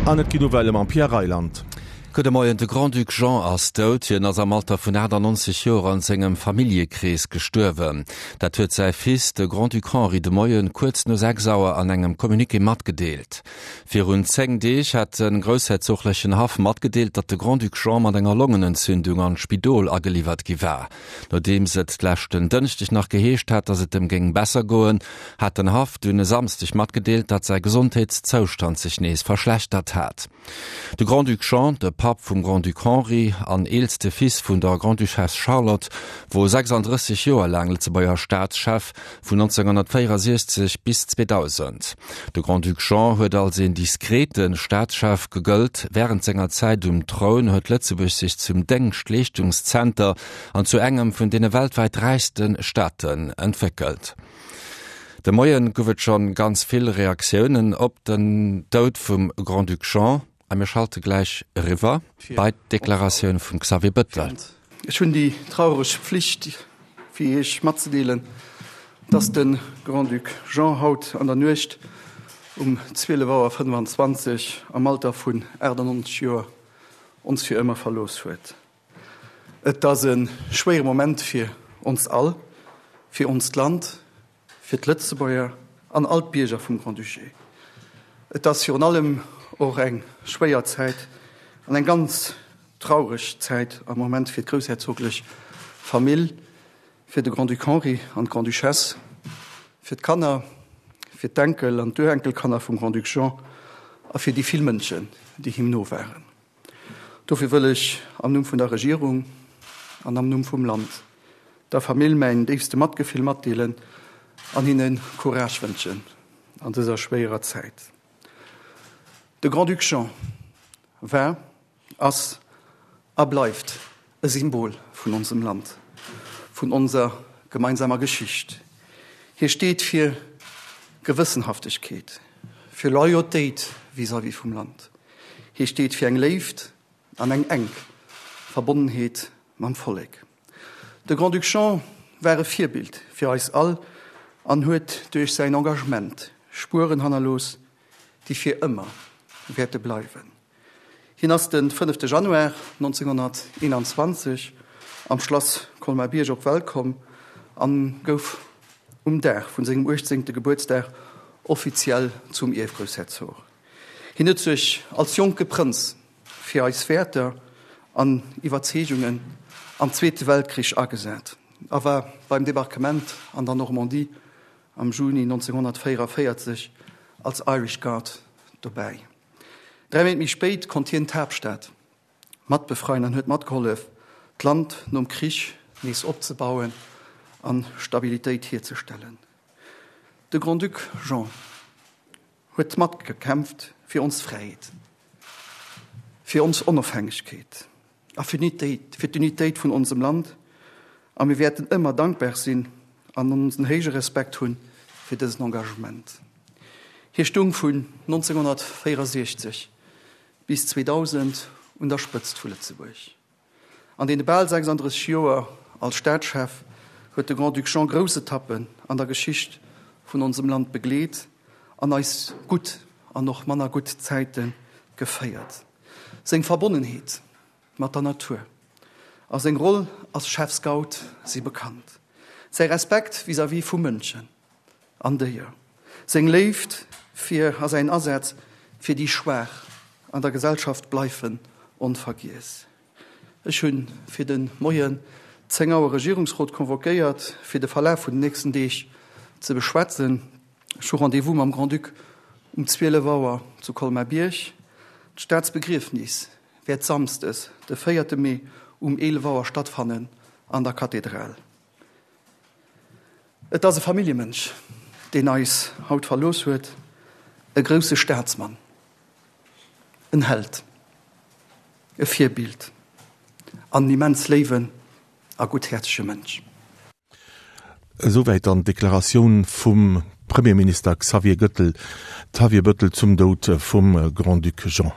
An et ginn Nouvellë mam Pierre Reyland. Gudde Moien, De Grand-Duc Jean ass dout. Hien ass am Alter vun 98 Joer an sengem Familljekrees gestuerwen. Dat huet säi Fils, de Grand-Duc Henri, de Moien kuerz no 6 Auer an engem Communiqué matgedeelt. Virun 10 Deeg hat de groussherzoglechen Haff matgedeelt, datt de Grand-Duc Jean mat enger Longenentzündung an d'Spidol ageliwwert gi war. Nodeems et leschten Dënschdeg nach geheescht hat, datt et em géing besser goen, hat den Haff dunn e Samsdeg matgedeelt, datt säi Gesondheetszoustand sech nees verschlechtert hat. De Grand-Duc Jean, de Papp vum Grand-Duc Henri an eelste Fils vun der Grande-Duchesse Charlotte, wor 36 Joer laang Lëtzebuerger Staatschef, vun 1964 bis 2000. De Grand-Duc Jean huet als een diskrete Staatschef gegëllt. Wärend senger Zäit um Troun huet Lëtzebuerg sech zum Déngschtleeschtungszenter an zu engem vun deene weltwäit räichste Staaten entwéckelt. De Moien gouf et schonn ganz vill Reaktiounen op den Doud vum Grand-Duc Jean a mir schalte gläich eriwwer bei d'Deklaratioun vum Xavier Bëttel. Ech hunn déi traureg Pflicht fir Iech matzedeelen, dass de Grand-Duc Jean haut an der Nuecht um 12 Auer 25 am Alter vun 98 Joer ons fir ëmmer verlooss huet. Et ass e schwéiere Moment fir ons all, fir onst Land, fir d'Lëtzebuerger an all d'Bierger vum Grand-Duché. Et ass virun allem och eng schwéier Zäit an eng ganz traureg Zäit am Moment fir d'groussherzoglech Famill, fir de Grand-Duc Henri an d'Grande-Duchesse, fir d'Kanner, fir d'Enkel an d'Urenkelkanner vum Grand-Duc Jean a fir déi vill Mënschen, déi him no waren. Dofir wëll ech am Numm vun der Regierung an am Numm vum Land der Famill mäin déifste Matgefill matdeelen an hinne Courage wënschen an dëser schwéierer Zäit. De Grand-Duc Jean war, ass a bleift e Symbol vun onsem Land, vun onser gemeinsamer Geschicht. Hie steet fir Gewëssenhaftegkeet, fir Loyautéit vis-à-vis vum Land. Hie steet fir eng Léift an eng enk Verbonnenheet mam Vollek. De Grand-Duc Jean war e Virbild fir eis all an huet duerch säin Engagement Spueren hannerlooss, déi fir ëmmer wäerte bleiwen. Hien ass de fënnefte Januar 1921 am Schlass Colmar-Bierg op d'Welt komm an gouf um Dag vun sengem uechtzéngte Gebuertsdag offiziell zum Ierfgroussherzog. Hien huet sech als jonke Prënz fir eis Wäerter an Iwwerzeegungen am Zweete Weltkrich agesat a war beim Debarquement an der Normandie am Juni 1944 als Irish Guard dobäi. Dräi Méint méi spéit konnt hien d'Haaptstad mat befreien an huet matgehollef, d'Land nom Krich nees opzebauen a Stabilitéit hierzestellen. De Grand-Duc Jean huet matgekämpft fir ons Fräiheet, fir ons Onofhängegkeet a fir d'Unitéit vun onsem Land a mir wäerten ëmmer dankbar sinn an onsen héije Respekt hunn fir dësen Engagement. Hie stung vun 1964 bis 2000 un der Spëtzt vu Lëtzebuerg. An deene bal 36 Joer als Staatschef huet de Grand-Duc Jean grouss Etappen an der Geschicht vun onsem Land begleet an eis gutt an och manner gutt Zäite geféiert. Seng Verbonnenheet mat der Natur a seng Roll als Chefscout si bekannt. Säi Respekt vis-à-vis vu Mënschen an Déier, seng Léift fir a säin Asaz fir déi Schwaach an der Gesellschaft bleifen onvergiess. Ech hu fir de Moien 10 Auer Regierungsrot convoquéiert, fir de Verlaf vun den nächsten Deeg ze beschwätzen. Ech hu Rendez-vous mam Grand-Duc um 12 Auer zu Colmar-Bierg. D'Staatsbegriefnis wäert samsdes, de véierte Mee um 11 Auer stattfannen an der Kathedral. Et ass e Familljemënsch, deen eis haut verlooss huet, e grousse Staatsmann, en Held, e Virbild an en immens léiwen a gutthäerzege Mënsch. Esouwäit dann d'Deklaratioun vum Premierminister Xavier Gëttel, Xavier Bëttel zum Doud vum Grand-Duc Jean.